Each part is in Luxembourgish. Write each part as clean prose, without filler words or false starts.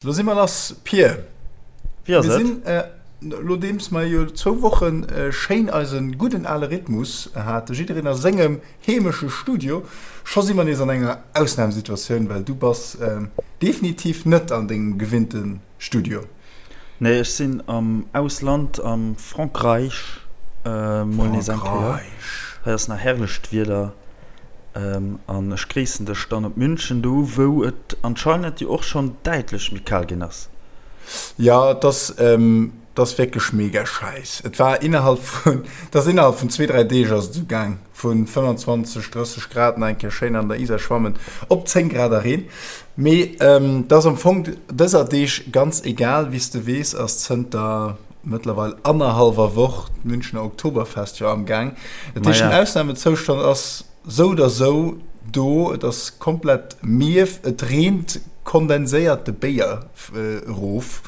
Lo si mer lass, Pir. Wéi ass Mir et? sinn, nodeems mer jo zwou Woche schéin eise gudden ale Rhythmus haten, jiddereen a sengem heemesche Studio, scho si mer nees an enger Ausnamesituatioun, well du bass definitiv net an dengem gewinnte Studio. Nee, ech sinn am Ausland, am Frankräich, mol nees eng Kéier. Frankräich. Hei ass nach herrlecht Wieder. An ech gréissen dech dann op München, do wou et anscheinend jo och schonn däitlech méi kal ginn ass. Jo, et ass, et ass wierklech mega schäiss. Et war innerhalb vun, et ass innerhalb vun zwee, dräi Deeg ass et esou gaang, vu 25, 30 Grad nach eng Kéier schéin an der Isar schwammen, op 10 Grad a Reen. Mee et ass am Fong dëser Deeg ganz egal. Wéi s de weess, ass zënter mëttlerweil annerhallwer Woch d'Münchener Oktoberfest jo am Gaang. Dat heescht, den Ausnamezoustand ass sou oder sou do. Et ass komplett mierf, et reent kondenséierte Béier erof,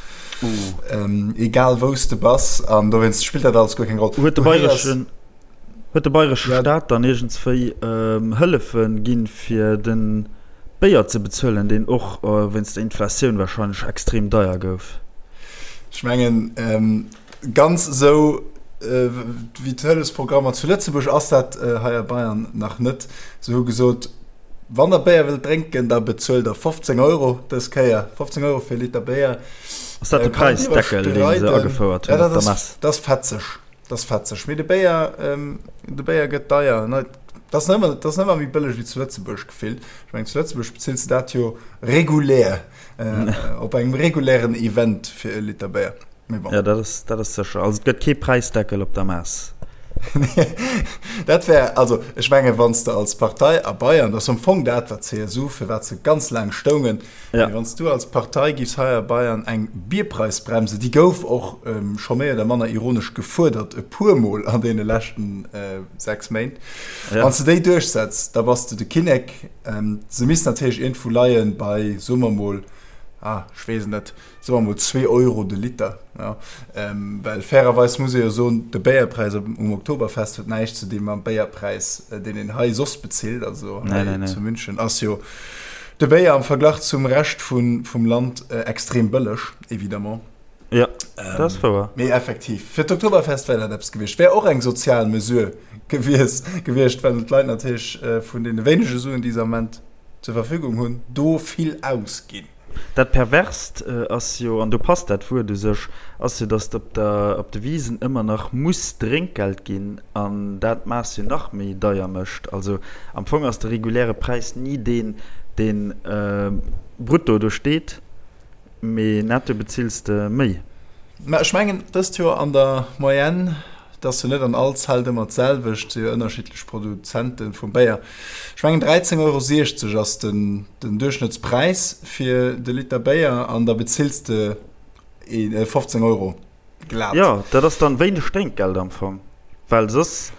egal wou s de bass. An dowéinst spillt dat alles guer keng Roll. Huet de bayreschen, huet de bayresche Staat dann iergendswéi Hëllefe ginn, fir de Béier ze bezuelen, deen och wéinst der Inflatioun warscheinlech extrem deier gouf? Ech mengen, ganz esou wéi d'Hëllefsprogrammer zu Lëtzebuerg ass dat hei a Bayern nach net. Se hu gesot, wann der Béier wëllt drénken, da bezuelt der 15 Euro dës Kéier. 15 Euro fir e Liter Béier. Ass dat de Präisdeckel, dee se agefouert hunn op der Mess? Dat ass fetzeg. Dat ass fetzeg. Mee de Béier, de Béier gëtt deier. Dat ass net méi bëlleg wéi zu Lëtzebuerg gefillt. Ech mengen, zu Lëtzebuerg bezills de dat jo regulär. Op engem regulären Event fir e Liter Béier. Mee bon. Ja, dat ass, dat ass sécher. Also et gëtt kee Präisdeckel op der Mess. Dat wär, also ech menge wann s de als Partei a Bayern, dat ass am Fong dat wat d'CSU, fir wat se ganz laang stoungen, Ja. mee wann s du als Partei giffs hei a Bayern eng Bierpreisbremse, déi gouf och scho méi oder manner ironesch gefuerdert e puermol an deene leschten 6 Méint, Ja. wann s de déi duerchsetz, da bass de de Kinnek. Se misst natierlech iergendwou leien bei, soe mer mol, ah, ech weess et net, soe mer mol zwee Euro de Liter. Ja. Well fairerweis muss ee jo soen, de Béierpräis um Oktoberfest huet näischt ze di mam Béierpräis, deen een hei soss bezilt. Also hei nee, nee, nee. zu München ass jo de Béier am Verglach zum Rescht vun, vum Land extrem bëlleg, évidemment. Ja, dat ass wouer. Mee effektiv, fir d'Oktoberfest wär dat eppes gewiescht. Wär och eng sozial Mesure gewies, gewiescht, well d'Leit natierlech vun deene wéinege Suen, déi se am Moment zur Verfügung hunn, do vill ausginn. Dat Perverst ass jo, an do passt dat Wuert u sech, ass jo, datt op der, op de Wisen ëmmer nach muss Drénkgeld ginn an dat d'Maass jo nach méi deier mécht. Also am Fong ass de reguläre Präis ni deen, deen brutto do steet. Mee netto bezills de méi. Mä ech mengen dëst Joer an der Moyenne, et ass jo net an all Zelt ëmmer d'selwecht, si jo ënnerschiddlech Produzente vum Béier, ech mengen 13,60 Euro ass den Duerchschnëttspräis fir de Liter Béier an da bezills de 15 Euro. Glat. Jo, dat ass dann wéineg Drénkgeld am Fong, well soss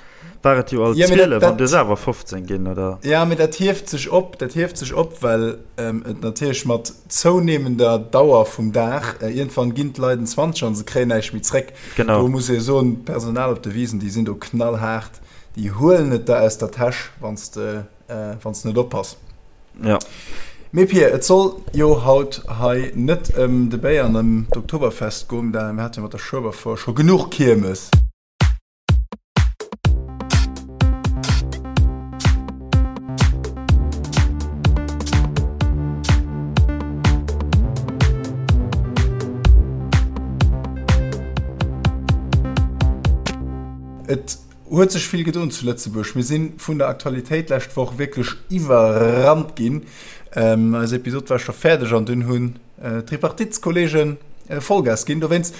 war et jo alt 12 an du hues awer 15 ginn, oder? Ja, mee dat hieft sech op, dat hieft sech op, well et natierlech mat zounehmender Dauer vum Dag, iergendwann ginn d'Leit en 20 an se kréien näischt méi zréck. Genau. Do muss ee soen, d'Personal op de Wisen, déi sinn do knallhaart, déi huelen et der aus der Täsch, wann s de wann s de net oppass. Ja. Mee Pir, et soll jo haut hei net ëm de Béier an ëm d'Oktoberfest goen, da mir hate jo mat der Schueberfour scho genuch Kiermes. Et Huet sech vill gedoen zu Lëtzebuerg. Mir si vun der Aktualitéit lescht Woch wierklech iwwerrannt ginn. Eis Episod war scho fäerdeg an dunn hunn d'Tripartiteskollege Vollgas ginn. Dowéinst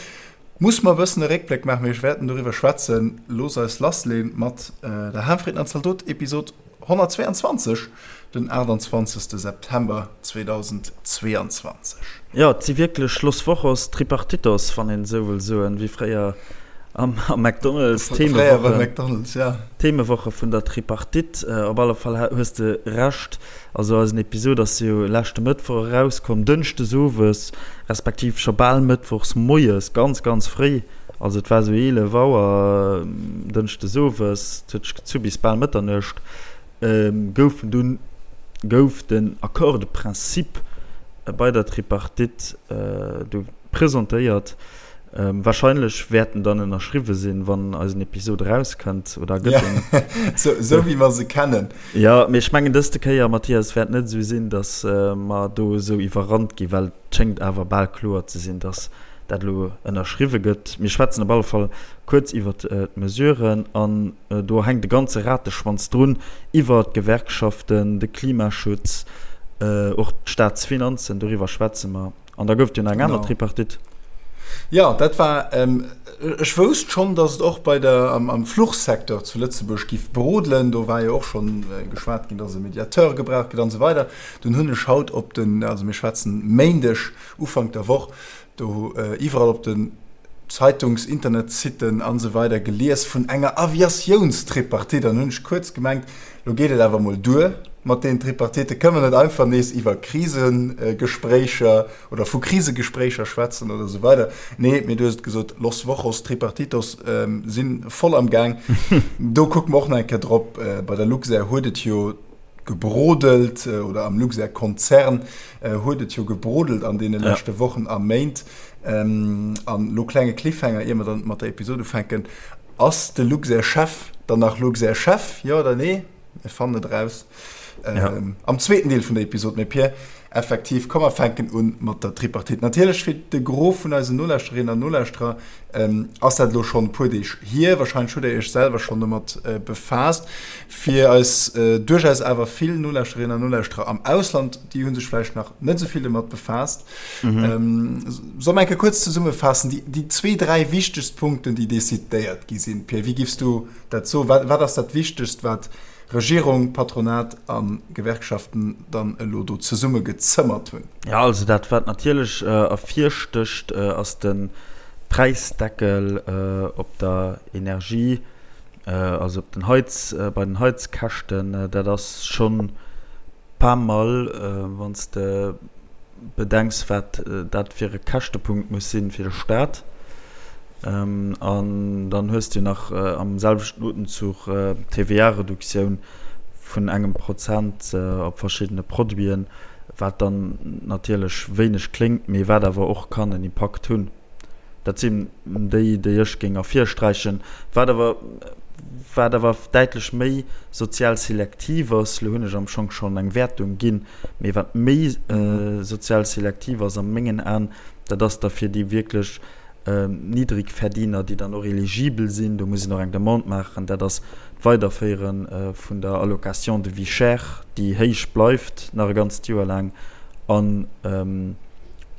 muss mer e bëssen e Réckbléck maachen, mee ech wäerten doriwwer schwätzen. Looss eis lassleeën mat der Hahnfritten an Zaldot Episod 122, den 28 September 2022. Jo, et si wierklech Los Wochos Tripartitos, wann een esou wëll soen, wéi fréier am McDonald's, d'Themewoche vun der Tripartite. Op alle Fall hues de Recht, also eisen Episod ass jo leschte Mëttwoch erauskomm, dënschdes owes, respektiv scho bal mëttwochs moies, ganz, ganz fréi. Also et war esou 11 Auer dënschdes owes, et huet sech gezu bis bal Mëtternuecht, goufen dunn gouf den Accord de principe. bei der Tripartite do presentéiert. Wahrscheinlech wäert en dann ënnerschriwwe sinn, wann eisen Episod erauskënnt, oder gëtt en. Ja, sou wéi mer se kennen. Jo, mee ech mengen dëste Kéier, Mathias, wäert net esou sinn, datt mer do esou iwwerrannt ginn, well et schéngt awer bal kloer ze sinn, datt dat elo ënnerschriwwe gëtt. Mir schwätzen op alle Fall kuerz iwwert d'Mesuren an do hänkt e ganze Rateschwanz drun, iwwer d'Gewerkschaften, de Klimaschutz, och d'Staatsfinanzen, doriwwer schwätze mer. An da gouf et jo nach eng aner Tripartite. Jo, dat war, ech wousst schonn, datt et och bei der, am Fluchsecteur zu Lëtzebuerg giff brodelen. Do war jo och schonn geschwat ginn, datt e Mediateur gebraucht gëtt an esou weider. Dunn hunn ech haut op den, also mir schwätzen Méindeg, Ufank der Woch, do iwwerall op den Zeitungs-, Internetsiten an esou weider gelies vun enger Aviatiounstripartite. An hunn ech kuerz gemengt, Lo geet et awer mol duer mat deenen Tripartite. Kënne mer net einfach nees iwwer Krisegespréicher oder vu Krisegespréicher schwätzen oder esou weider? Nee, mee du hues et gesot, Los Wochos Tripartitos si voll am Gaang. Do kucke mer och nach eng Kéier drop. Bei der Luxair huet et jo gebrodelt, oder am Luxair-Konzern huet et jo gebrodelt an deene leschte Wochen a Méint. An elo klenge Cliffhanger, ier mer dann mat der Episod ufänken. Ass de Luxair-Chef dann nach Luxair-Chef, jo oder nee? Mir fannen et eraus am zweeten Deel vun der Episod. Mee Pir, effektiv, komm mer fänken un mat der Tripartite. Natierlech fir de Gros vun eisen Nolauschterinnen an Nolauschterer ass dat elo schonn e puer Deeg hier. Warscheinlech hutt der iech selwer schonn domat befaasst. Fir eis duerchaus awer vill Nolauschterinnen an Nolauschterer am Ausland, déi hu sech vläicht nach net esou vill domat befaasst. Mhm. Soll mer eng Kéier kuerz zesummefaassen, déi, déi zwee, dräi wichtegst Punkten, déi decidéiert gi sinn? Pierre, wéi giffs du dat soen? Wat, wat ass dat Wichtegst, wat Regierung, Patronat a Gewerkschaften dann elo do zesummegezëmmert hunn? Ja, also dat, wat natierlech ervirstécht, ass de Präisdeckel op der Energie, also op den Heiz, bei den Heizkäschten. Dat ass schonn pas mal, wann s de bedenks, wat dat fir e Käschtepunkt muss sinn fir de Staat. An dann hues de jo nach am selwechten Otemzuch d'TVA-Reduktioun vun engem Prozent op verschiddene Produiten, wat dann natierlech wéineg kléngt, mee wat awer och kann en Impakt hunn. Dat sinn déi, déi ech géing ervirsträichen. Wat awer, wat awer däitlech méi sozial selektiv ass, elo hunn ech am Schong schonn eng Wäertung ginn, mee wat méi sozial selektiv ass a mengen Aen, dat ass da fir déi wierklech Niddrigverdiener, déi dann och eligibel sinn, do muss een och eng Demande maachen, dat ass d'Weiderféiere vun der Allocation de vie chère, déi héich bleift nach e ganzt Joer laang an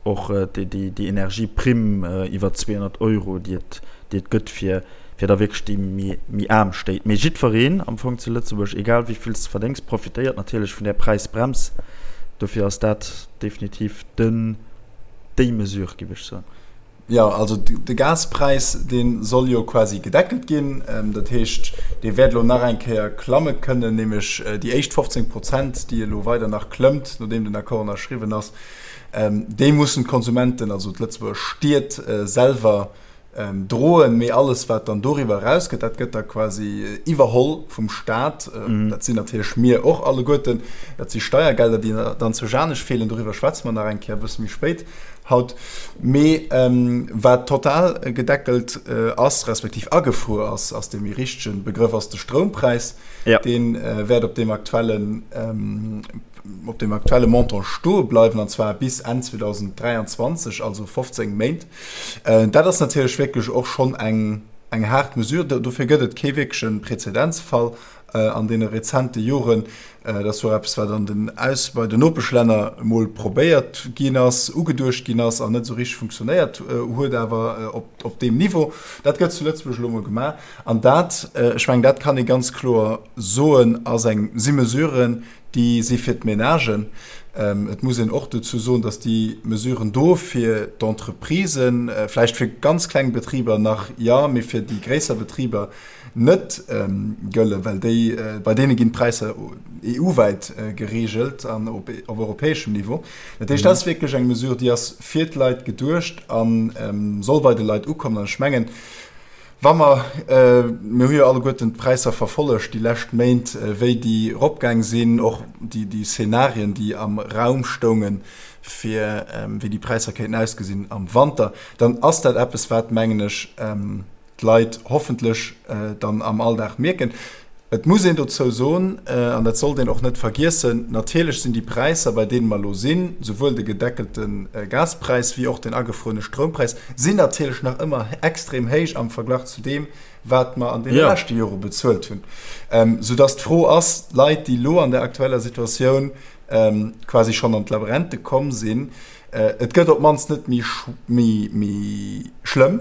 och déi Energieprimm iwwer 200 Euro, déi et, déi et gëtt fir, fir da wierklech déi méi, méi aarm Stéit. Mee jiddwereen am Fong zu Lëtzebuerg, egal wéi vill s de verdéngs, profitéiert natierlech vun där Präisbrems. Dofir ass dat definitiv den, déi Mesure, géif ech soen. Jo, also de Gaspräis, dee soll jo quasi gedeckelt ginn. Dat heescht, dee wäert elo nach eng Kéier klamme kënnen, nämlech déi éischt 15 Prozent, déi elo weider nach klëmmt, nodeem den Accord ënnerschriwwen ass, déi mussen d'Konsumenten, also d'Lëtzebuerger Stied selwer droen. Mee alles, wat dann doriwwer erausgëtt, dat gëtt da quasi iwwerholl vum Staat. Dat sinn natierlech mir och alleguerten. Dat si Steiergelder, déi dann zu Janech feelen. Doriwwer schwätze mer nach eng Kéier e bësse méi spéit. Haut. Mee wat total gedeckelt ass, respektiv agefruer ass, ass dee méi richtege Begrëff, ass de Stroumpräis. Ja. Dee wäert op deem aktuellen, op deem aktuelle Montant stoe bleiwen, an zwar bis Enn 2023, also 15 Méint. Dat ass natierlech wierklech och schonn eng, eng haart Mesure. Dofir gëtt et kee wierkleche Prezedenzfall an deene rezente Joren. Dat ass och eppes, wat an den Aus bei den Nopeschlänner emol probéiert ginn ass, ugeduecht ginn ass an net esou richteg funktionéiert huet, awer op, op deem Niveau. Dat gëtt zu Lëtzebuerg elo emol gemaach. An dat, ech mengen, dat kann ee ganz kloer soen, ass eng, si Mesuren, déi si fir d'Menagen. Et muss een och dozou soen, datt déi Mesuren do fir d'Entreprisen, vläicht fir ganz kleng Betriber nach, jo, mee fir déi gréisser Betriber net gëllen, well déi, bei deene ginn d'Präisser EU-wäit gereegelt an op europäeschem Niveau. Dat heescht, dat ass wierklech eng Mesure, déi ass fir d'Leit geduecht a soll bei de Leit ukommen. An ech mengen, wa mer, mir hu jo alleguerten d'Präisser verfollegt déi lescht Méint, wéi déi eropgaang sinn, och déi Szenarien, déi am Raum stoungen. fir wéi déi Präisser kéinten ausgesinn am Wanter, dann ass dat eppes, wat, mengen ech, d'Leit hoffentlech dann am Alldag mierken. Et muss een dozou soen, an dat sollt een och net vergiessen, natierlech sinn déi Präisser, bei deene mer elo sinn, souwuel de gedeckelte Gaspräis wéi och den agefruerene Stroumpräis, sinn natierlech nach ëmmer extrem héich am Verglach zu deem, wat mer an deene leschte Jore bezuelt hunn. Soudass d'Fro ass, Leit, déi elo an der aktueller Situatioun quasi schonn an d'Labrente komm sinn, Et gëtt op d'mannst net méi méi schlëmm,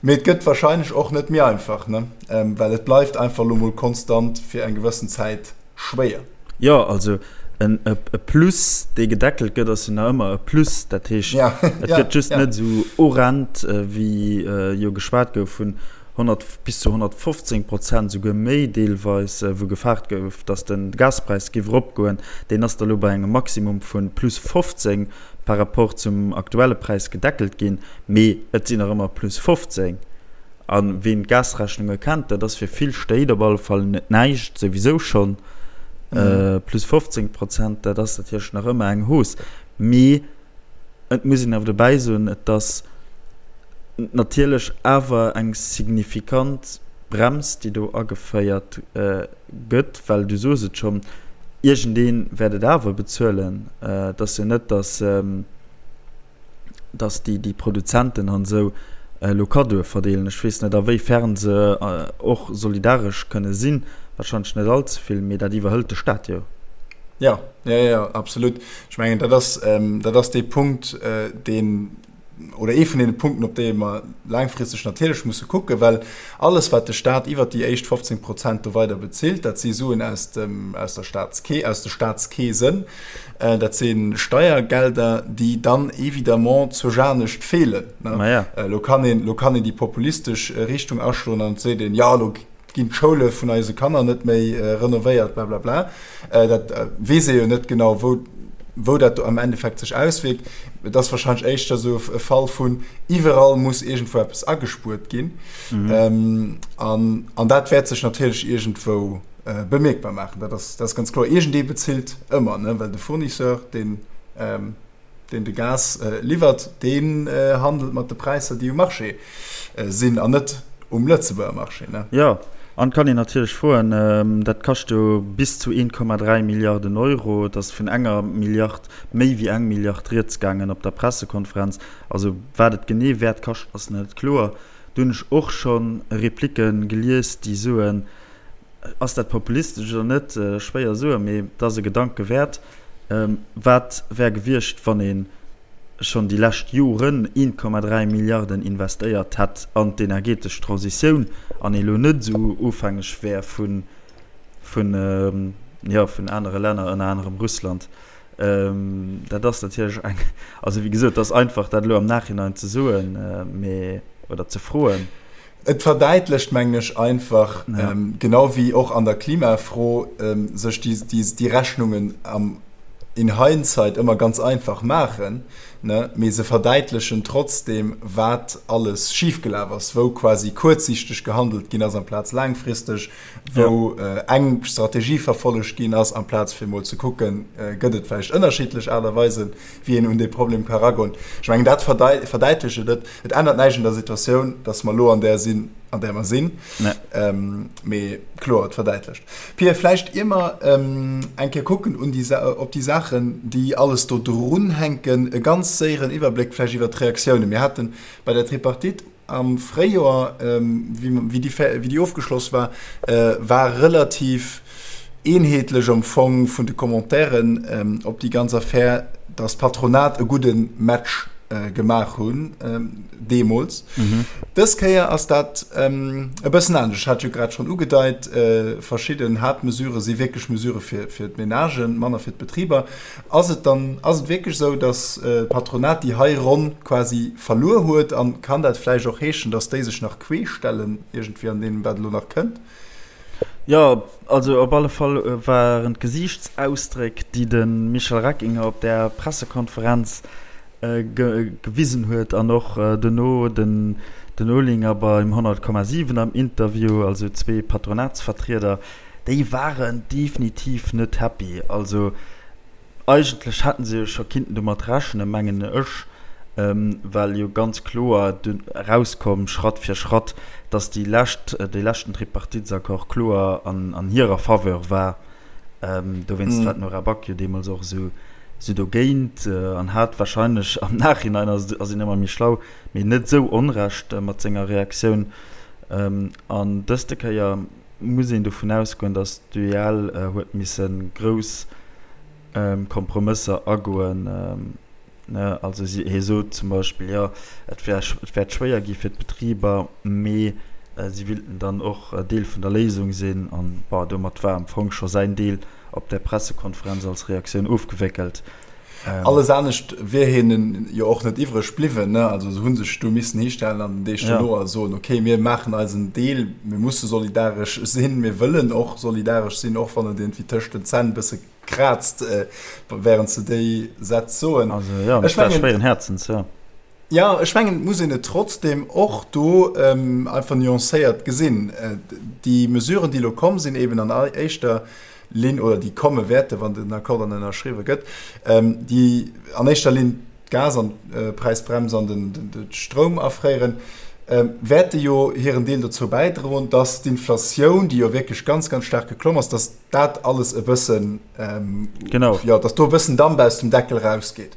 mee et gëtt wahrscheinlech och net méi einfach, ne? Well et bleift einfach elo mol konstant fir eng gewëssen Zäit schwéier. Jo, also en e Plus, dee gedeckelt gëtt, ass jo nach ëmmer e Plus. Dat heescht, et gëtt just net esou horrend, wéi jo geschwat gouf vun 100 bis zu 115 Prozent, souguer méi deelweis, wou gefaart gouf, datt de Gaspräis géif eropgoen. Deen ass da lo bei engem Maximum vu plus 15 par rapport zum aktuelle Präis gedeckelt ginn, mee et sinn nach ëmmer plus 15. A ween d'Gasrechnunge kennt, dat ass fir vill Stéit op alle Fall net näischt, souwisou schonn. Plus 15 Prozent, dat ass natierlech nach ëmmer eng Hausse, mee Et muss een awer dobäi soen, et ass natierlech awer eng signifikant Brems, déi do ageféiert gëtt, well du soos et schonn, iergendee wäert et awer bezuelen. Et ass jo net, datt, datt déi Produzenten an esou elo Kaddoe verdeelen. Ech weess net, a wéi fern se och solidaresch kënne sinn, warscheinlech net allze vill, mee dat iwwerhëlt de Staat jo. Jo, jo, jo, absolut. Ech mengen, dat ass, dat ass dee Punkt, deen, oder ee vun deene Punkten, op déi mer laangfristeg natierlech musse kucken, well alles, wat de Stat iwwert déi éischt 15 Prozent do weider bezilt, dat si Suen aus dem, aus der Statskee, aus de Statskeesen, dat si Steiergelder, déi dann évidemment zur Janescht feelen. Elo kann een, elo kann een déi populistesch Richtung aschloen an et seet een, jo, elo ginn d'Schoule vun eise Kanner net méi renovéiert, blablabla. Dat weess ee jo net genau, wou, wou dat am Endeffekt sech auswierkt. Et ass wahrscheinlech éischter esou e Fall vun, iwwerall muss iergendwou eppes agespuert ginn. Mhm. An, an dat wäert sech natierlech iergendwou bemierkbar maachen. Dat ass, dat ass ganz kloer. Iergendee bezilt ëmmer, ne, well de Fournisseur, deen, deen de Gas liwwert, deen handelt mat de Präisser, déi um Marché sinn an net um Lëtzebuerger Marché. Jo, an et kann een natierlech froen, dat kascht jo bis zu 1,3 Milliarden Euro, et ass vun enger Milliard, méi wéi eng Milliard rieds gaangen op der Pressekonferenz. Also wat et genee wäert kaschten, ass net kloer. Do hunn ech och scho Replique gelies, déi soen, Ass dat populistesch oder net? Schwéier soen, mee et ass e Gedanke wäert. Wat wär gewiescht, wann ee schonn déi lescht Joren 1,3 Milliarden investéiert hätt an d'energetesch Transitioun an ee lo net esou ofhängeg wär vun, jo, vun anere Länner, ënner anerem Russland? Dat ass natierlech eng, also wéi gesot, et ass einfach dat elo am Nachhinein ze soen, mee, oder ze froen. Et verdäitlecht, mengen ech, einfach, genau wéi och an der Klimafro, sech déi Rechnungen am in hindsight ëmmer ganz einfach maachen, mee se verdäitlechen trotzdeem, wat alles schifgelaf ass, wou quasi kuerzsiichteg gehandelt ginn ass amplaz laangfristeg, wou eng Strategie verfollegt ginn ass, amplaz fir emol ze kucken, gëtt et vläicht ënnerschiddlech Aart a Weisen, wéi een un dee Problem ka eragoen. Ech mengen, dat verdäitlecht et net. Et ännert näischt un der Situatioun, dass mer elo an där sinn, an där mer sinn. Mee kloer, et verdäitlecht. Pia, vläicht ier mer eng Kéier kucken un déi, op déi Saachen, déi alles do drunhänken, e ganz séieren Iwwerbléck vläicht iwwert d'Reaktiounen. Mir hate bei der Tripartite Am Fréijoer, wéi déi ofgeschloss war, war relativ eenheetlech am Fong vun de Commentairen op déi ganz Affär, datt d'Patronat e gudde Match gemaach hunn deemools. Dës Kéier ass dat e bëssen anescht. Ech hat jo grad schonn ugedeit, verschidden Haaptmesurë si wierklech Mesurë fir d'Menagen, manner fir d'Betriber. Ass et dann, ass et wierklech esou, datt d'Patronat déi hei Ronn quasi verluer huet? An kann dat vläicht och heeschen, datt déi sech nach queesch stellen iergendwéi an deem, wat elo nach kënnt? Jo, also op alle Fall waren d'Gesiichtsausdréck, déi de Michel Reckinger op där Pressekonferenz gewisen huet an och dono den Olinger beim 100,7 am Interview, also zwee Patronatsvertrieder, Déi waren definitiv net happy. Also. Eigentlech hätten se jo scho kinnten domat rechnen, mengen ech, well jo ganz kloer dunn erauskomm, Schratt fir Schratt, datt déi lescht, dee leschten Tripartitesaccord kloer an hirer Faveur war. Dowéinst war d'Nora Back jo deemools och esou dogéint an hat wahrscheinlech, am Nachhinein ass een ëmmer méi schlau, mee net esou Onrecht mat senger Reaktioun. An dëste Kéier muss een dovun ausgoen, datt d'UEL huet misse grouss Kompromësser agoen. Also hie sot zum Beispill, jo et wär, et wäert schwéier gi fir d'Betriber, mee si willten dann och Deel vun der Léisung sinn. An bon, domat war am Fong scho säin Deel op där Pressekonferenz als Reaktioun ofgewéckelt. Alles anescht wier hinnen jo och net iwwreg bliwwen. Also se hu sech do missen histellen an den Deeg dono a soen, okay, mir maachen eisen Deel, mir musse solidaresch sinn, mir wëllen och solidaresch sinn, och wann et iergendwéi tëscht den Zänn e bësse kraazt, wärend se déi Sätz soen. Also jo, ech war schwéieren Häerzens, jo. Jo, ech mengen, et muss een et trotzdem och do einfach nuancéiert gesinn. Déi Mesuren, déi elo komm sinn, eben an éischter Linn, oder déi komme wäerten, wann den Accord dann ënnerschriwwe gëtt, déi an éischter Linn d'Gas an d'Präisbrems an de Stroum afréieren, wäerte jo hiren Deel dozou bäidroen, dass d'Inflatioun, déi jo wierklech ganz, ganz staark geklomm ass, dass dat alles e bëssen, genau, jo, dass do e bëssen Damp aus dem Deckel rausgeet.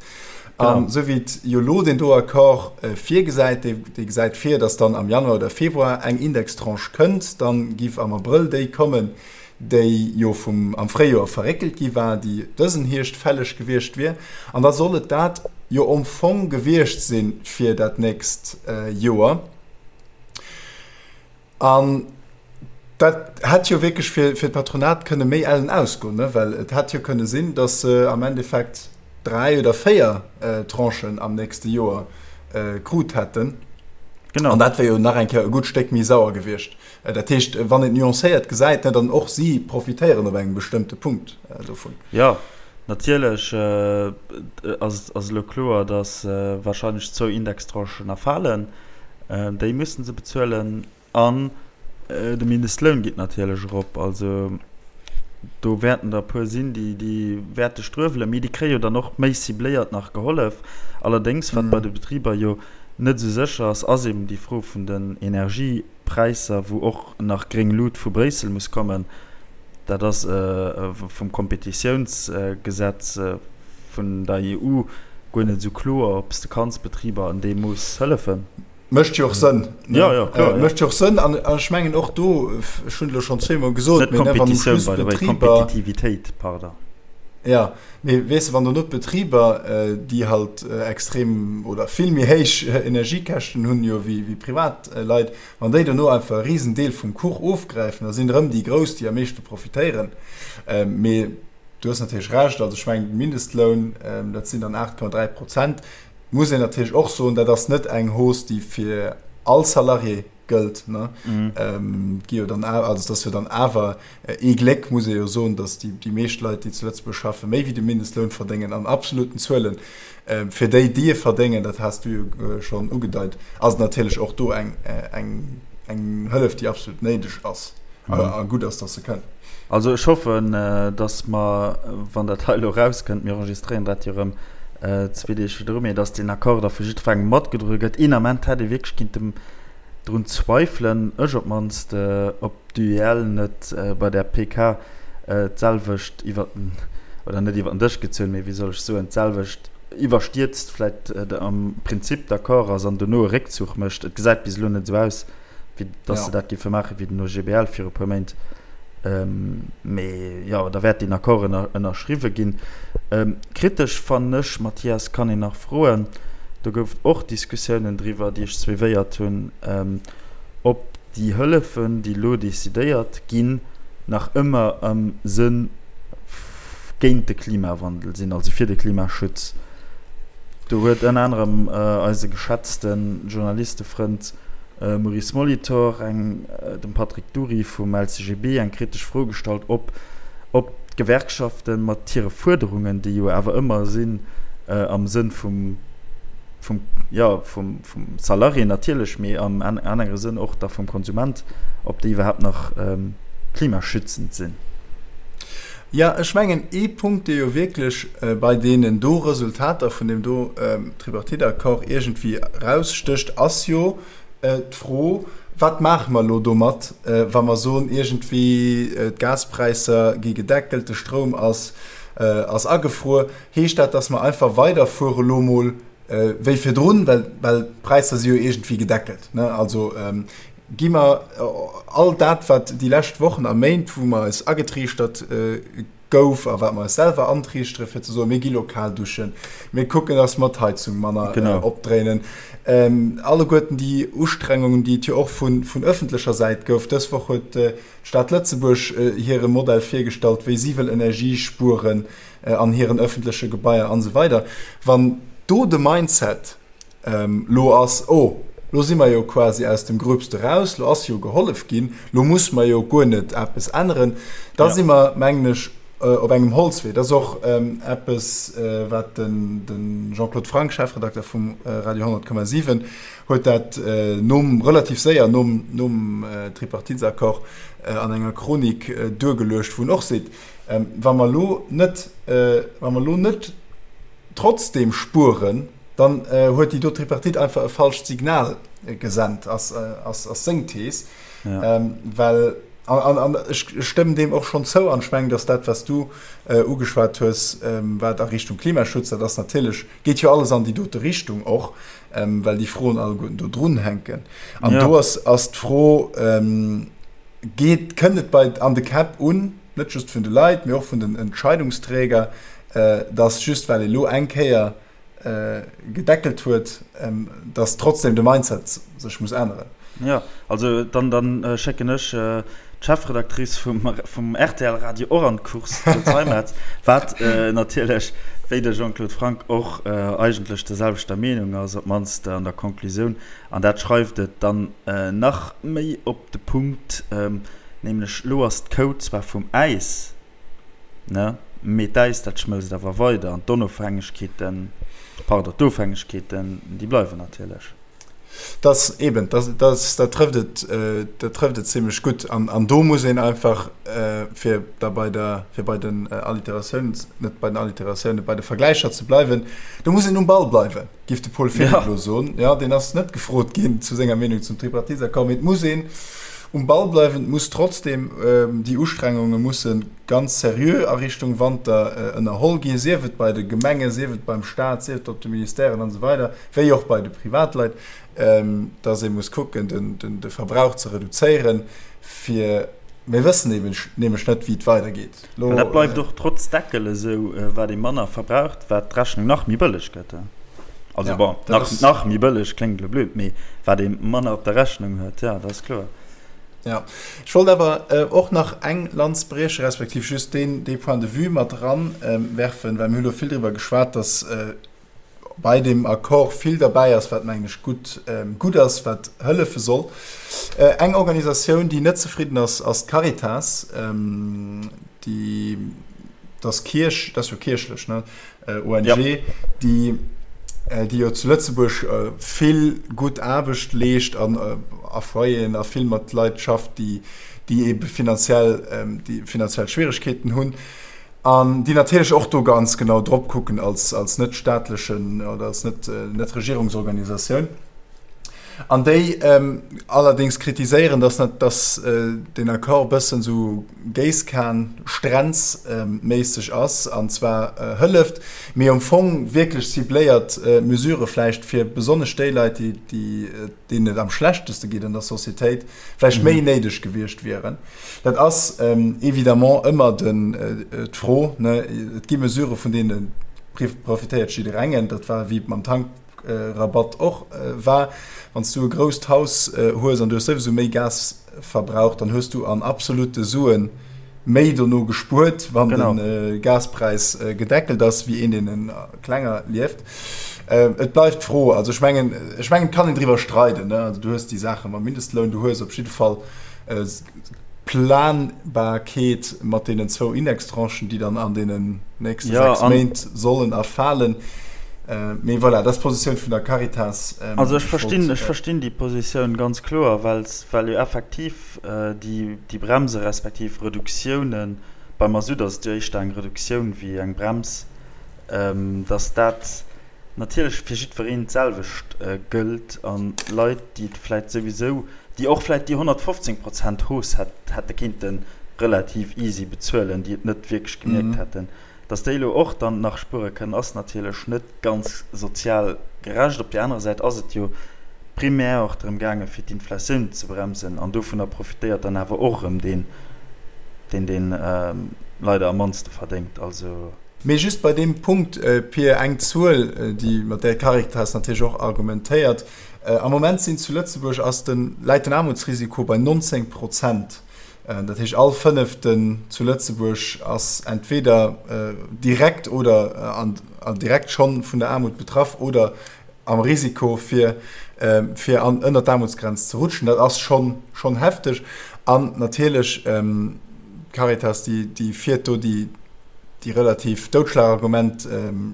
An esou wéi et jo elo deen do Accord virgesäit, dee, dee gesäit vir, dass dann am Januar oder Februar eng Indextranche kënnt, dann giff am Abrëll déi kommen, déi jo vum, am Fréijoer verréckelt gi war, déi dësen Hierscht fälleg gewiescht wier. An da soll et dat jo am Fong gewiescht si fir dat nächst Joer. An dat hätt jo wierklech fir, fir d'Patronat kënne méi ellen ausgoen, ne? Well et hätt jo kënne sinn, datt se am Endeffekt 3 oder 4 Tranchen am nächste Joer krut hätten. Genau. An dat wär jo nach eng Kéier e gutt Stéck méi sauer gewiescht. Dat heescht, wann een et nuancéiert gesäit, ne, dann och si profitéieren op engem bestëmmte Punkt dovun. Jo, natierlech ass, ass elo kloer, datt wahrscheinlech zwou Indextranchen erfalen. Déi mussen se bezuelen an de Mindestloun geet natierlech erop. Also do wäerten der e puer sinn, déi déi wäerte struewelen, mee déi kréie jo dann och méi cibléiert nach gehollef. Allerdéngs, wat bei de Betriber jo net esou sécher ass, ass eben déi Fro vun den Energiepräisser, wou och nach gréng Lut vu Bréissel muss kommen. Dat ass vum Kompetitiounsgesetz vun der EU guer net esou kloer, ob s de kanns Betriber an deem Mooss hëllefen. Mécht jo och Sënn. Jo, jo, kloer, jo. Mécht jo och Sënn. An ech mengen och do, ech hunn et elo schonn zweemol gesot, Net Kompetitioun, by the way, Kompetitivitéit, pardon. Jo, mee weess de, wann dono d'Betriber, déi halt extrem oder vill méi héich Energiekäschten hunn jo wéi Privatleit, Wann déi dono einfach e Risendeel vum Kuch ofgräifen, da sinn et erëm déi Grouss, déi am meeschte profitéieren. Mee du hues natierlech Recht, also ech mengen, de Mindestloun, dat sinn dann 8,3 Prozent, muss een natierlech och soen, dat ass net eng Hausse, déi fir all Salarié gëllt. Et gi jo dann awer, also et ass jo dann awer Ee Gléck muss ee jo soen, datt déi meescht Leit, déi zu Lëtzebuerg schaffen, méi wéi de Mindestloun verdéngen an absoluten Zuelen. Fir déi, déi e verdéngen, dat has du jo schonn ugedeit, ass et natierlech och do eng Hëllef, déi absolut néideg ass a gutt ass, datt se kënnt. Also ech hoffen, datt mer, wann dat hei elo erauskënnt, mir enregistréieren dat jo erëm zwee Deeg virdru, mee datt deen Accord da vu jiddwerengem matgedroe gëtt. Een Ament hätt ee wierklech kinnten drun zweifelen, ech op d'mannst, ob d'UEL net bei där PK d'selwecht iwwer den, oder net iwwer den Dësch gezunn, mee wéi soll ech soen, d'selwecht iwwerstierzt vläicht am Prinzip d'accord ass an dono e Réckzuch mécht. Et gesäit bis elo net esou aus, wéi datt se dat géife maachen, wéi den OGBL viru puer Méint. Mee jo, da wäert deen Accord ënnerschriwwe ginn. Kritesch fannen ech, Mathias, kann een nach froen, do gouf et och Diskussiounen driwwer, déi ech suivéiert hunn, ob déi Hëllefen, déi elo decidéiert ginn, nach ëmmer am Sënn géint de Klimawandel sinn, also fir de Klimaschutz. Do huet ënner anerem eise geschätzte Journalistefrënd Maurice Molitor eng dem Patrick Dury vum LCGB eng kritesch Fro gestallt, ob ob d'Gewerkschafte mat hire Fuerderungen, déi jo awer ëmmer sinn am Sënn vum vum, jo, vum, vum Salarié natierlech, mee am anere Sënn och da vum Konsument, ob déi iwwerhaapt nach klimaschützend sinn. Jo, ech mengen, ee Punkt, dee jo wierklech bei deenen do Resultater vun deem do Tripartite-Accord iergendwéi erausstécht, ass jo d'Fro, Wat maache mer elo domat, wa mer soen, iergendwéi d'Gaspräisser gi gedeckelt, de Stroum ass agefruer? Heescht dat, datt mer einfach weiderfuere elo mol wéi virdrun, well d'Präisser si jo iergendwéi gedeckelt? Also gi mer all dat, wat déi lescht Wochen a Méint, wou mer eis agetriichtert gouf a wat mer eis selwer antriichtere fir ze soen, mir gi lo kal duschen, mir kucken, dass mer d'Heizung manner genau. opdréinen. Ähm, alleguerten déi Ustrengungen, déi et jo och vun, vun ëffentlecher Säit gouf. Dës Woch huet äh, d'Stad Lëtzebuerg äh, hire Modell virgestallt, wéi si wëll Energie spueren äh, an hiren ëffentleche Gebaier an esou weider. Wann do de Mindset Lo ass, oh, lo si mer jo quasi aus dem Gröbste raus, lo ass jo gehollef ginn, lo muss mer jo guer net eppes änneren. Da si mer, mengen ech, op engem Holzwee. Dat ass och eppes, wat de Jean-Claude Franck, Chefredakter vum Radio 100,7, huet dat nom, relativ séier nom, nom Tripartitesaccord an enger Chronik duergeluecht, wou en och seet, Wa mer elo net, wa mer elo net trotzdeem spueren, Dann huet déi do Tripartite einfach e falscht Signal gesent, ass seng Thees. Well, an ech stëmmen deem och schonn zou, an ech mengen, datt dat, wat s du ugeschwat hues, wat a Richtung Klimaschutz, dat ass natierlech, geet jo alles an déi dote Richtung och, well déi Froen alleguerten do drunhänken. An do ass d'Fro, geet, kënnt et bei an de Käpp un, net just vun de Leit, mee och vun den Entscheidungsträger, datt just well ee lo eng Kéier gedeckelt huet, dass trotzdem de Mindset sech muss änneren. Jo, also dann dann schécken ech d'Chefredactrice vum vum rtl Radio och an d'Course zu Zeimetz, wat natierlech wéi de Jean-Claude Franck och eigentlech der selwechter Meenung ass, op d'mannst an der Conclusioun. An dat schreift et dann nach méi op de Punkt, nämlech elo ass d'Kou zwar vum Äis, Ne? Mee d'Äis, dat schmëlzt awer weider an d'Onofhängegkeeten, pardon, d'Ofhängegkeeten, déi bleiwen natierlech. Dass eben, dass, dass, dat trëfft et, dat trëfft et zimlech gutt. An, an do muss een einfach, fir da bei der, fir bei den Alliteratiounen, net bei den Alliteratiounen, bei de Vergläicher ze bleiwen, do muss een um Ball bleiwen, géif de Paul Philipp elo soen. Jo, deen ass net gefrot ginn zu senger Meenung zum Tripartiteaccord, mee et muss een um Ball bleiwen, et muss trotzdem déi Ustrengunge musse ganz seriö a Richtung Wanter ënnerholl ginn, sief et bei de Gemengen, sief et beim Staat, sief et op de Ministèren an esou weider, wéi och bei de Privatleit, dass ee muss kucken, de Verbrauch ze reduzéieren, fir, mir wëssen eben nämlech net, wéi et weidergeet. Well dat bleift och trotz Deckel esou, wat ee manner verbraucht, wat d'Rechnung nach méi bëlleg gëtt. Also ja, bon, nach, ist, nach méi bëlleg kléngt elo blöd, mee wat ee manner op der Rechnung huet, ja, dat ass kloer. Ja, ech wollt awer äh, och nach eng Lanz brieche, respektiv just deen, dee Point de vue mat eran ähm, werfen, well mir hu lo vill driwwer geschwat, dass äh, bei deem Accord vill derbäi ass, wat mengen ech gutt, ähm, gutt ass, wat hëllefe soll. Äh, eng Organisatioun, déi net zefridden ass, ass d'Caritas, ähm, déi, dass Kierch, dat ass jo kierchlech, ne? ONG, ja. déi, déi jo zu Lëtzebuerg vill gutt Aarbecht leescht an a Foyeren a vill mat Leit schafft, déi, déi ebe finanziell, déi finanziell Schwieregkeeten hunn an déi natierlech och do ganz genau drop kucken als, als net staatlechen oder als net, net Regierungsorganisatioun. An déi allerdéngs kritiséieren, dass dass deen Accord e bëssen esou Géisskan-Strenz-méisseg ass an zwar hëlleft, mee am Fong wierklech cibléiert Mesurë vläicht fir besonnesch déi Leit, déi deenen et am schlechteste geet an der Societéit, vläicht méi néideg gewiescht wieren. Dat ass évidemment ëmmer d'Fro. Et gi Mesurë vun deene profitéiert jidderengen. Dat war wéi mam Tank. Rabatt och war. Wann s du e grousst Haus hues an du hues souwisou méi Gas verbraucht, dann hues du an absolute Sue méi dono gespuert, wann de Gaspräis gedeckelt ass, wéi een, deen klenger lieft. Et bleift d'Fro, also ech mengen, ech mengen, et kann een driwwer streiden, ne? Also du hues déi Saache mam Mindestloun, du hues op jidde Fall Planbarkeet mat deenen zwou Indextranchen, déi dann an deenen nächste 6 Méint sollen erfalen. Mee voilà, dat ass d'Positioun vun der Caritas. Also ech verstinn, ech verstinn déi Positioun ganz kloer, well well jo effektiv déi déi Bremse respektiv Reduktiounen. Beim Masutt ass et jo éischter eng Reduktioun wéi eng Brems, dass dat natierlech fir jiddwereen d'selwecht gëllt an Leit, déi et vläicht souwisou, déi och vläicht déi 115 Prozent Hausse hätte kéinte relativ easy bezuelen, déi et net wierklech gemierkt hätten, Dass déi elo och dann nach spuere kënnen, ass natierlech net ganz sozial gerecht. Op där anerer Säit ass et jo primär och drëm gaangen, fir d'Inflatioun ze bremsen, an dovunner profitéiert dann awer och erëm deen, deen dee leider am mannste verdéngt. Also. Mee just bei deem Punkt, Pir, eng Zuel, déi, mat där d'Caritas natierlech och argumentéiert, Am Moment sinn zu Lëtzebuerg ass den, läit den Aarmutsrisiko bei 19 Prozent. Dat heescht, all Fënneften zu Lëtzebuerg ass entweder direkt oder direkt schonn vun der Aarmut betraff oder am Risiko, fir fir an ënner d'Aarmutsgrenz ze rutschen. Dat ass schonn schonn hefteg. An natierlech d'Caritas, déi déi fiert do déi déi relativ Doudschlagargument,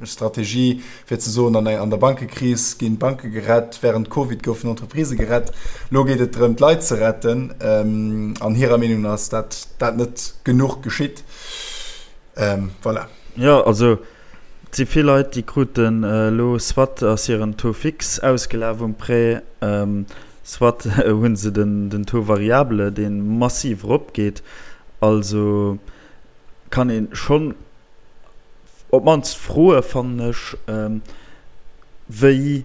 Strategie, fir ze soen, an der Bankekris ginn d'Banke gerett, während Covid goufen Entreprisë gerett, elo geet et drëm, d'Leit ze retten. An hirer Meenung no ass dat dat net genuch geschitt. Voilà. Jo, also et si vill Leit, déi kruten elo, soit ass hiren Taux fixe ausgelaf um Prêt, soit hu se den Taux variable, dee massiv eropgeet. Also kann een schonn op d'mannst froe fannen ech, wéi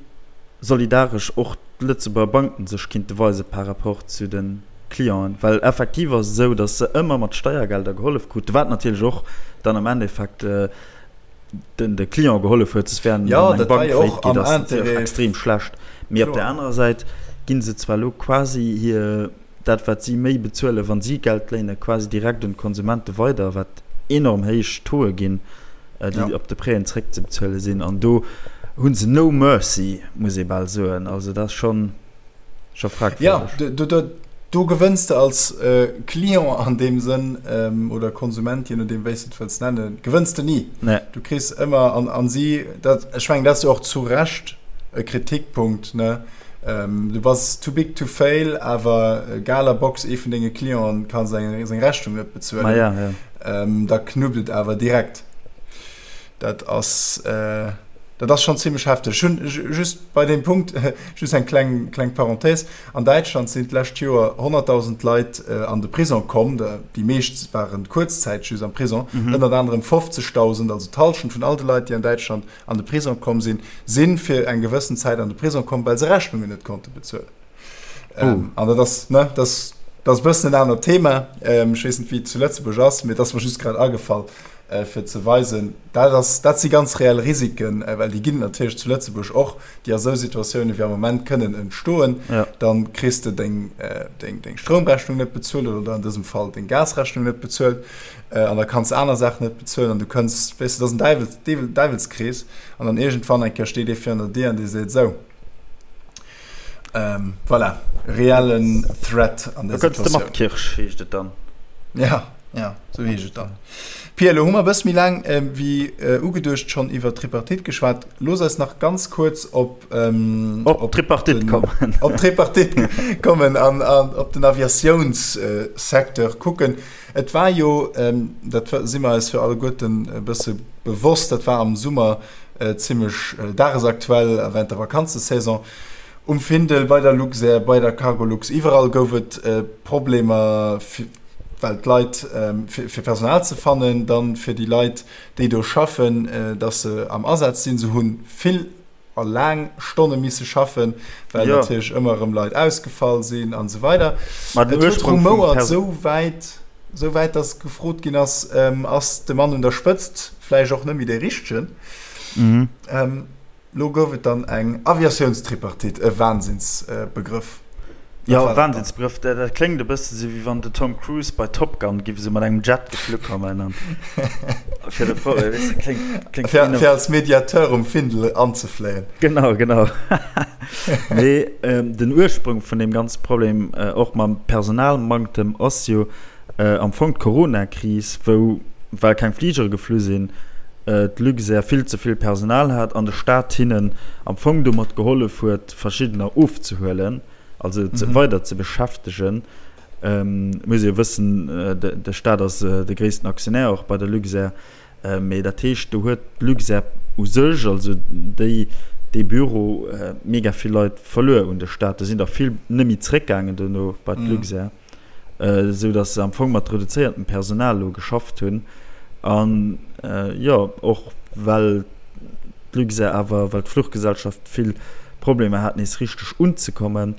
solidaresch och d'Lëtzebuerger Banken sech kinnte weise par rapport zu de Clienten. Well effektiv ass et esou, datt se ëmmer mat Steiergelder gehollef kruten, wat natierlech och dann am Endeffekt den de Client gehollef huet, soss wär eng Bank faillite geet, ass natierlech extrem schlecht. Mee op där anerer Säit gi se zwar elo quasi hir dat wat si méi bezuelen, wa si Geld léinen, quasi direkt un d'Konsumente weider, wat enorm héich Tauxe ginn, déi op de Prêten zréckzebezuele sinn. An do hu se no mercy, muss ee bal soen. Also dat ass schonn scho fragwürdeg. Jo, do gewënns de als Client an deem Sënn, oder Konsument, je nodeem wéi s de et wëlls nennen, gewënns de ni. Du kriss ëmmer, an si, dat, ech mengen, dat ass jo och zu Recht e Kritikpunkt, ne? Du bass too big to fail, awer Galabox, ee vun denge Clienten, ka seng Rechnung net bezuelen. Ma ja, ja. Da knuppt et awer direkt. Dat ass, dat ass schonn zimmlech hefteg. Ech hunn just bei deem Punkt just eng kleng, kleng Parenthèse. An Däitschland sinn d'lescht Joer 100.000 Leit an de Prisong komm. Déi meescht waren kuerzzäiteg just am Prisong. Ënnert anerem 50.000, also d'Hallschent vun all de Leit, déi an Däitschland an de Prisong komm sinn, si fir eng gewëssen Zäit an de Prisong komm, well se Rechnungen net konnte bezuelen. Oh. An dat ass, ne, dat ass, dat ass e bëssen en anert Thema. Ech weess net, wéi et zu Lëtzebuerg ass, mee et ass mer just grad agefall, fir ze weisen, dat ass, dat si ganz reell Risiken, well déi ginn et natierlech zu Lëtzebuerg och, déi a sou Situatiounen wéi am Moment kënnen entstoen. Ja. Dann kriss de deng, deng, deng Stroumrechnung net bezuelt oder an dësem Fall deng Gasrechnung net bezuelt. An da kanns de aner Saachen net bezuelen an du kënns, weess de, dat ass en Däiwels, Deew, Däiwelskrees. An dann iergendwann eng Kéier steet ee virun der Dier an dee seet, Sou, ähm, voilà, reellen Threat an där Da kënns de mat Situatioun. Kirch, heescht et dann. Ja, ja, sou heescht et dann. Pia, elo hu mer e bësse méi laang wéi ugeduecht schonn iwwer d'Tripartite geschwat. Looss eis nach ganz kuerz op, Op op d'Tripartite den, kommen. op d'Tripartite kommen an, an op den Aviatiounssecteur kucken. Et war jo, dat si mer eis jo alleguerten e bësse bewosst, dat war am Summer zimmlech dagesaktuell a während der Vakanzesaison, um Findel, bei der Luxair, bei der Cargolux, iwwerall gouf et Problemer, well d'Leit, fir Personal ze fannen, dann fir déi Leit, déi do schaffen, dass se am Asaz sinn. Se hu vill a laang Stonne misse schaffen, well ja. natierlech ëmmer erëm Leit ausgefall sinn an esou weider. Ma den Et huet rumouert esou wäit, esou wäit, dass gefrot ginn ass, ähm, ass de Mann un der Spëtzt vläicht och net méi dee Richtegen? Mhm. Ähm, lo gouf et dann eng Aviatiounstripartite, e Wahnsinnsbegrëff. Jo, Wahnsinnsbegrëff, dat kléngt e bësse sou wéi wann de Tom Cruise bei Top Gun giff esou mat engem Jet geflu kommen an fir de Pro, weess de, kléngt, kléngt Fir, fir als Mediateur um Findel anzefléien. Genau, genau. Mee den Ursprung vun deem ganze Problem, och mam Personalmanktem, ass jo am Fong d'Corona-Kris, wou, well keng Fligere geflu sinn, d'Luxair vill ze vill Personal hat an de Staat hinnen am Fong domat gehollef huet, verschiddener ofzehuelen, also ze weider ze beschäftegen. Muss ee jo wëssen, de Staat ass de gréissten Aktionär och bei der Luxair. Mee dat heescht, do huet d'Luxair u sech, also déi, dee Büro, mega vill Leit verluer un de Staat. Do sinn der vill net méi zréckgaangen dono bei d'Luxair, esou datt se am Fong mat reduzéiertem Personal elo geschafft hunn. An jo, och well d'Luxair awer, well d'Fluchgesellschaft vill Problemer hat nees richteg unzekommen,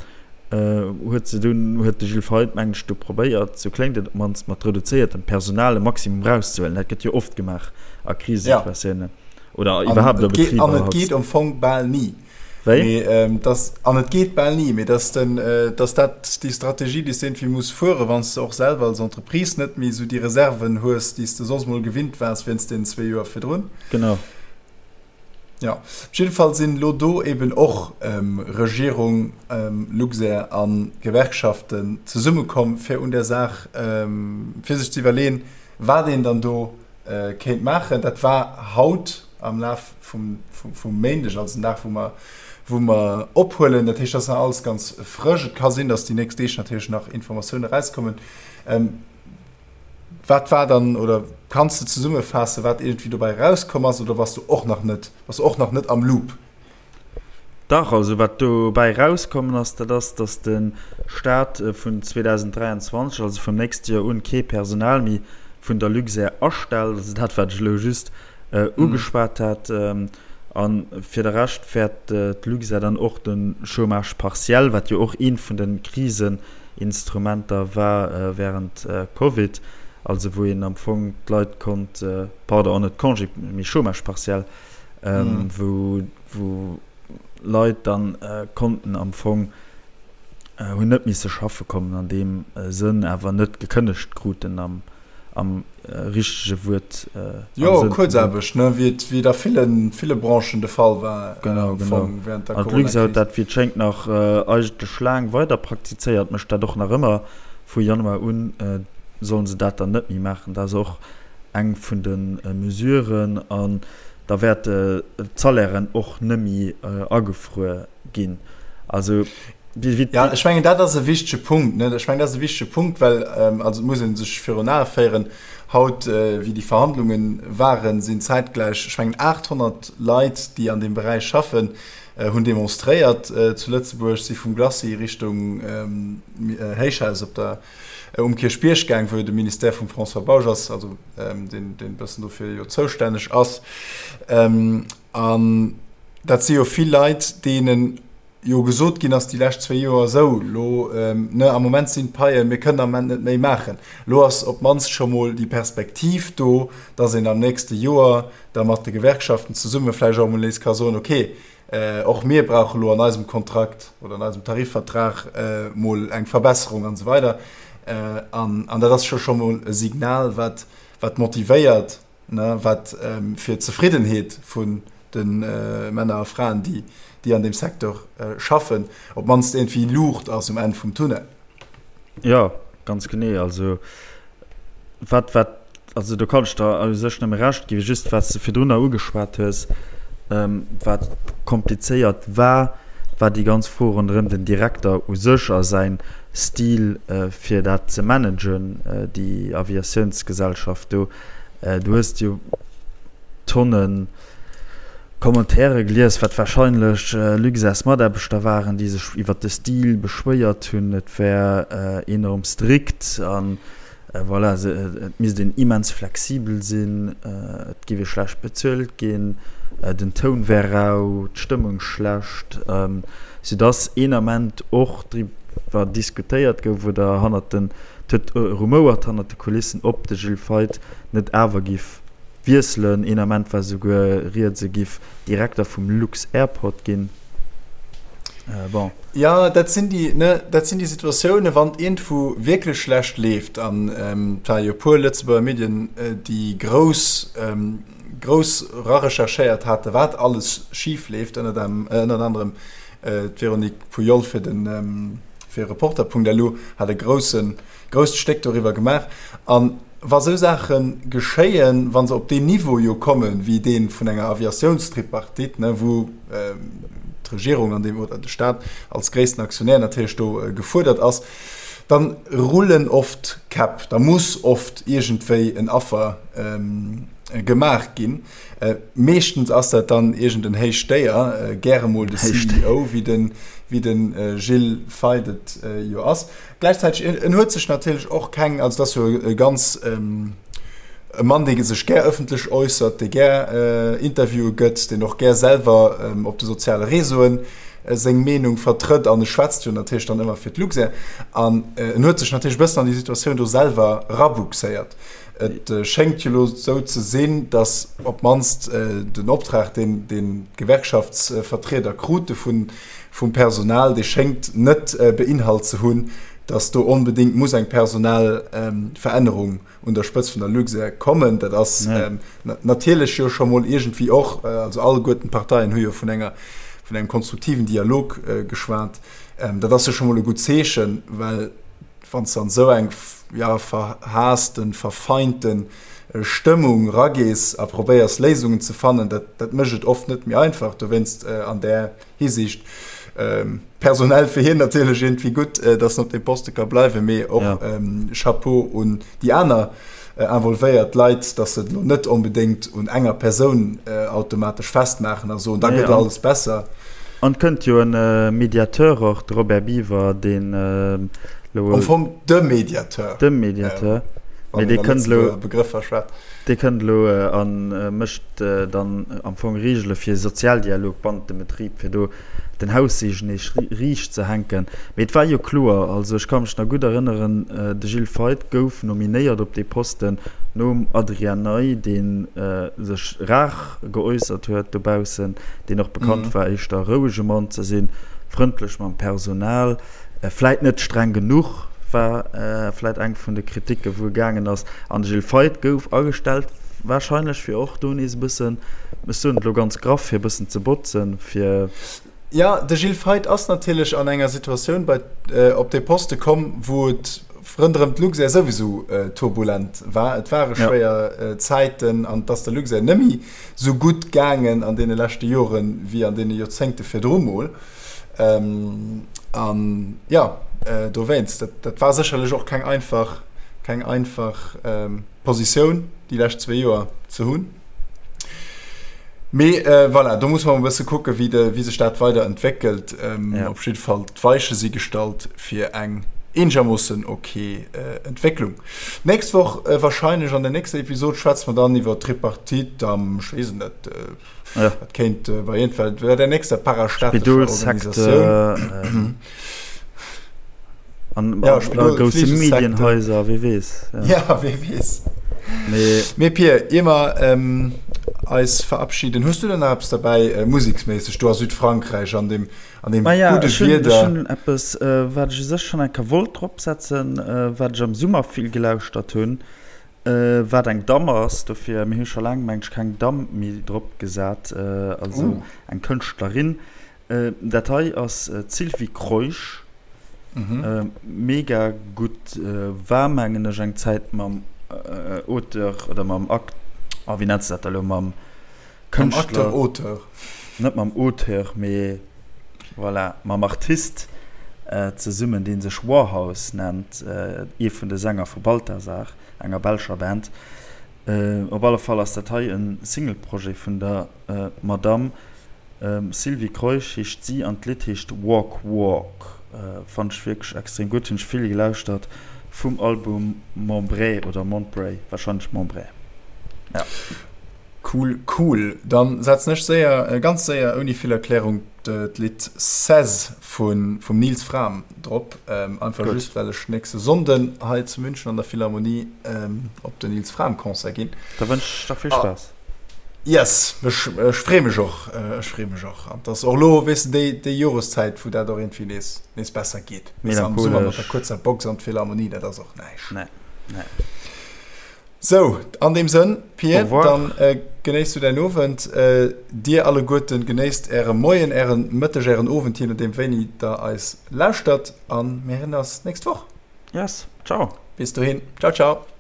huet se dunn, huet de Gilles Feith, mengen ech, du probéiert, sou kléngt et op d'mannst, mat reduzéiertem Personal e Maximum erauszehuelen. Dat gëtt jo oft gemaach a Krisesituatiounen oder iwwerhaapt a Betriber. An et geet am Fong bal ni. Wéi? Mee dass, an et geet bal ni, mee dass den, dass dat déi Strategie, déi s de iergendwéi muss fueren, wann s de och selwer als Entreprise net méi esou déi Reserven hues, déi s de soss mol gewinnt waars wéinst deenen zwee Joer virdrun. Genau. Jo, op jidde Fall sinn elo do eben och Regierung, Luxair a Gewerkschaften zesummekomm, fir un där Saach, fir sech ze iwwerleeën, wat een dann do kéint maachen. Dat war haut am Laf vum Méindeg, also den Dag, wou mer, wou mer ophuelen. Dat heescht, dat ass nach alles ganz frësch. Et ka sinn, datt déi nächst Deeg natierlech nach Informatioune erauskommen. Wat war dann, oder kanns de zesummefaassen, wat iergendwéi dobäi erauskomm ass, oder bass du och nach net, bass du och nach net am Loop? Dach, also wat dobäi erauskommen ass, dat ass, datt de Staat vun 2023, also vum nächste Joer un, kee Personal méi vun der Luxair astellt. Also dat, wat ech elo just ugeschwat hat. A fir de Rescht wäert d'Luxair dann och de Chômage partiel, wat jo och eent vun de Kriseninstrumenter war wärend Covid, also wou een am Fong d'Leit konnt, pardon, net Congé, mee Chômage partiel, wou Leit dann konnten am Fong, hunn net misse schaffe kommen an deem Sënn, awer net gekënnegt kruten am am richtege Wuert. Jo, Kuerzaarbecht, ne, wéi et, wéi et a villen, ville Branchen de Fall war. Genau, genau. Während der An d'Luxair huet dat, wéi et schéngt, nach eigentlech laang weider praktizéiert, mécht dat och nach ëmmer. Vu Januar un sollen se dat dann net méi maachen. Dat ass och eng vun de Mesuren. An da wäerte d'Salairen och net méi agefruer ginn. Also. Ja, ech mengen, dat ass e wichtege Punkt. Ne? Ech mengen, dat ass e wichtege Punkt, well ähm, also et muss ee sech virun Ae féieren, haut, äh, wéi déi Verhandlungen waren, sinn zäitgläich, ech mengen, 800 Leit, déi an deem Beräich schaffen, äh, hunn demonstréiert äh, zu Lëtzebuerg, si vum Glacis Richtung ähm, äh, Héichhaus op der, äh, um Kierchbierg gaang, wou jo de Ministère vum François Bausch ass, also ähm, deen, deen e bëssen dofir jo zoustänneg ass. Ähm, an dat si jo vill Leit, deenen jo gesot ginn ass déi lescht zwéi Joer, esou elo, ne, am Moment sinn d'Paien, mir kënnen am Moment net méi maachen. Elo ass op d'mannst scho mol déi Perspektiv do, dass een am nächste Joer da mat de Gewerkschaften zesumme vläicht och emol nees ka soen, okay, och mir brauche lo an eisem Kontrakt oder an eisem Tarifvertrag mol eng Verbesserung an esou weider. An dat ass scho scho mol e Signal, wat, wat motivéiert, ne, wat fir d'Zefriddenheet vun de Männer a Fraen, déi, déi an deem Secteur schaffen, op d'mannst iergendwéi Luucht ass um Enn vum Tunnel. Jo, ganz genee. Also wat, wat, also do kann ech der u sech nëmme Recht ginn. Just wat s de virdrunner ugeschwat hues, wat komplizéiert war, war déi ganz Fro ronderëm den Direkter u sech a säin Stil fir dat ze managen, déi Aviatiounsgesellschaft do. Du hues jo Tonnen Commentaire gelies, wat warscheinlech Luxairs-Mataarbechter waren, déi sech iwwer de Stil beschwéiert hunn, et wär enorm strikt an voilà, et misst een immens flexibel sinn, et géif ee schlecht bezuelt ginn, den Toun wär rau, d'Stëmmung schlecht, soudass een Ament och driwwer diskutéiert gouf oder hannert den, et huet rumouert hannert de Kulissen, ob de Gilles Feith net awer giff wiesselen. Een Ament war souguer rieds, e giff Direkter vum Lux-Airport ginn. Bon. Jo, dat sinn déi, ne, dat sinn déi Situatiounen, wann et iergendwou wierklech schlecht leeft, an et ware jo e puer Lëtzebuerger Medien, déi grouss, grouss erarecherchéiert haten, wat alles schif leeft, ënnert ënnert anerem d'Véronique Pujol fir den, fir Reporter.lu hat e groussen, grousst Stéck doriwwer gemaach. An wa sou Saache geschéien, wa se op deen Niveau jo kommen, wéi dee vun enger Aviatiounstripartite, ne, wou d'Regierung an deem, oder de Stat als gréissten Aktionär natierlech do gefuerdert ass, Dann rullen oft Käpp, da muss oft iergendwéi en Affer gemaach ginn. Meeschtens ass dat dann iergend en héicht Déier, gäre mol de CEO, wéi de wéi de Gilles Feith et jo ass. Gläichzäiteg, en huet sech natierlech och keng, also et ass jo e ganz e Mann, dee sech gär ëffentlech äussert, dee gär Interviewe gëtt, deen och gär selwer op de soziale Réseauen seng Meenung vertrëtt an e schwätzt jo natierlech dann ëmmer fir d'Luxair an en huet sech natierlech e bëssen an déi Situatioun do selwer rabuxéiert. Et schéngt jo elo esou ze sinn, datt op d'mannst den Optrag, deen d'Gewerkschaftsvertrieder krute vum Personal, dee schéngt net beinhalt ze hunn, datt do onbedéngt muss eng Personalverännerung un der Spëtzt vun der Luxair kommen. Dat ass natierlech jo scho mol iergendwéi och, also alleguerten d'Parteien hu jo vun enger, vun engem konstruktiven Dialog geschwat. Dat ass jo scho mol e gutt Zeechen, well wann s de an esou eng, jo, verhaassten, verfeinte Stëmmung ragees a probéiers Léisungen ze fannen, dat, dat mécht et oft net méi einfach. Dowéinst an där Hisiicht personell fir hien natierlech iergendwéi gutt, datt en op deem Poste ka bleiwen, mee och Chapeau un déi aner involvéiert Leit, datt se et elo net onbedéngt un enger Persoun automatesch festmaachen a soen, da gëtt alles besser. An et kënnt jo e Mediateur och, de Robert Biever, deen elo. Am Fong de Mediateur. De Mediateur. Wann een a Lëtzebuerger Begrëffer schwätzt. Dee kënnt elo a mécht dann am Fong Reegele fir Sozialdialog bannent dem Betrib, fir do den Haussegen nees riicht ze hänken. Mee et war jo kloer, also ech ka mech nach gutt erënneren, de Gilles Feith gouf nominéiert op dee Posten nom Adrian Ney, dee sech rar geäussert huet dobaussen, deen och bekannt war éischter e rouege Mann ze sinn, frëndlech mam Personal. Vläit net streng genuch war vläit eng vun de Kriticken, wou e gaangen ass. An de Gilles Feith gouf agestellt, warscheinlech fir och do nees e bëssen, ech soen et elo ganz graff, fir e bëssen ze botzen, fir. Jo, de Gilles Feith ass natierlech an enger Situatioun bei op dee Poste komm, wou et ronderëm d'Luxair souwisou turbulent war. Et ware schwéier Zäiten an et ass der Luxair net méi sou gutt gaangen an deene leschte Joren, wéi an deene Joerzéngte virdru mol. An jo, dowéinst, dat war sécherlech och keng einfach, keng einfach Positioun, déi lescht zwee Joer ze hunn. Mee voilà, do muss mer e bësse kucken, wéi de, wéi sech dat weider entwéckelt. Op jidde Fall, d'Weiche si gestallt fir eng eenegermoossen ok Entwécklung. D'nächst Woch warscheinlech an der nächster Episod schwätze mer dann iwwer d'Tripartite am, ech weess et net, Ja. Dat kéint äh, bei jeden Fall bei der nächster parastaatlecher Organisatioun. An ja, Spidol, grousse Medienhäuser, wie weess. Ja, ja wie weess. Mee, Mee Pir, ier mer ähm, eis verabschieden, hues du denn nach eppes dabei äh, museksméisseg do a Südfrankräich an dem, an dem ah, ja, gudde Wieder? Ech hunn eppes, äh, wat ech u sech schonn eng Kéier wollt dropsetzen, äh, wat ech am Summer vill gelauschtert hunn. Wat eng Damm ass, dofir, mir hu scho laang, meng ech, keng Damm méi drop gesat, also eng Kënschtlerin. Dat hei ass d'Sylvie Kreusch, mega gutt, war mengen ech eng Zäit mam Auteur oder mam Act, oh wéi nennt se dat da elo, mam Kënschtler. Mam Acteur-Auteur. Net mam Auteur, mee voilà, mam Artist zesummen, dee sech Warhouse nennt, ee vun de Sänger vu Balthazar, enger belscher Band. Op alle Fall ass dat hei e Single-Projet vun der Madamm Sylvie Kreusch heescht si an d'Lidd heescht Walk Walk. Fannt ech wierklech extrem gutt, hunn ech vill gelauschtert vum Album Montbray oder Montbray, warscheinlech Montbray, ja. Cool cool, dann setzen ech séier, ganz séier ouni vill Erklärung d'Lidd Seize vum Nils Frahm drop, einfach just well ech nächste Sonnden hei zu München an der Philharmonie op den Nils Frahm Concert ginn. Da wënsch ech der vill Spaass. Yes, ech free mech och, ech free mech och. An et ass och elo, weess de, déi Joreszäit wou dat och iergendwéi nees nees besser geet. Weess de, am Summer mat der kuerzer Box an d'Philharmonie, dat ass och näischt. Nee, nee. Sou, an deem Sënn, Pir, dann genéiss du däin Owend. Dir alleguerten genéisst äre Moien, ären Mëtteg, ären Owend, jee nodeem wéini der eis lauschtert. A mir héieren eis nächst Woch. Yes, ciao. Bis dohin, ciao, ciao.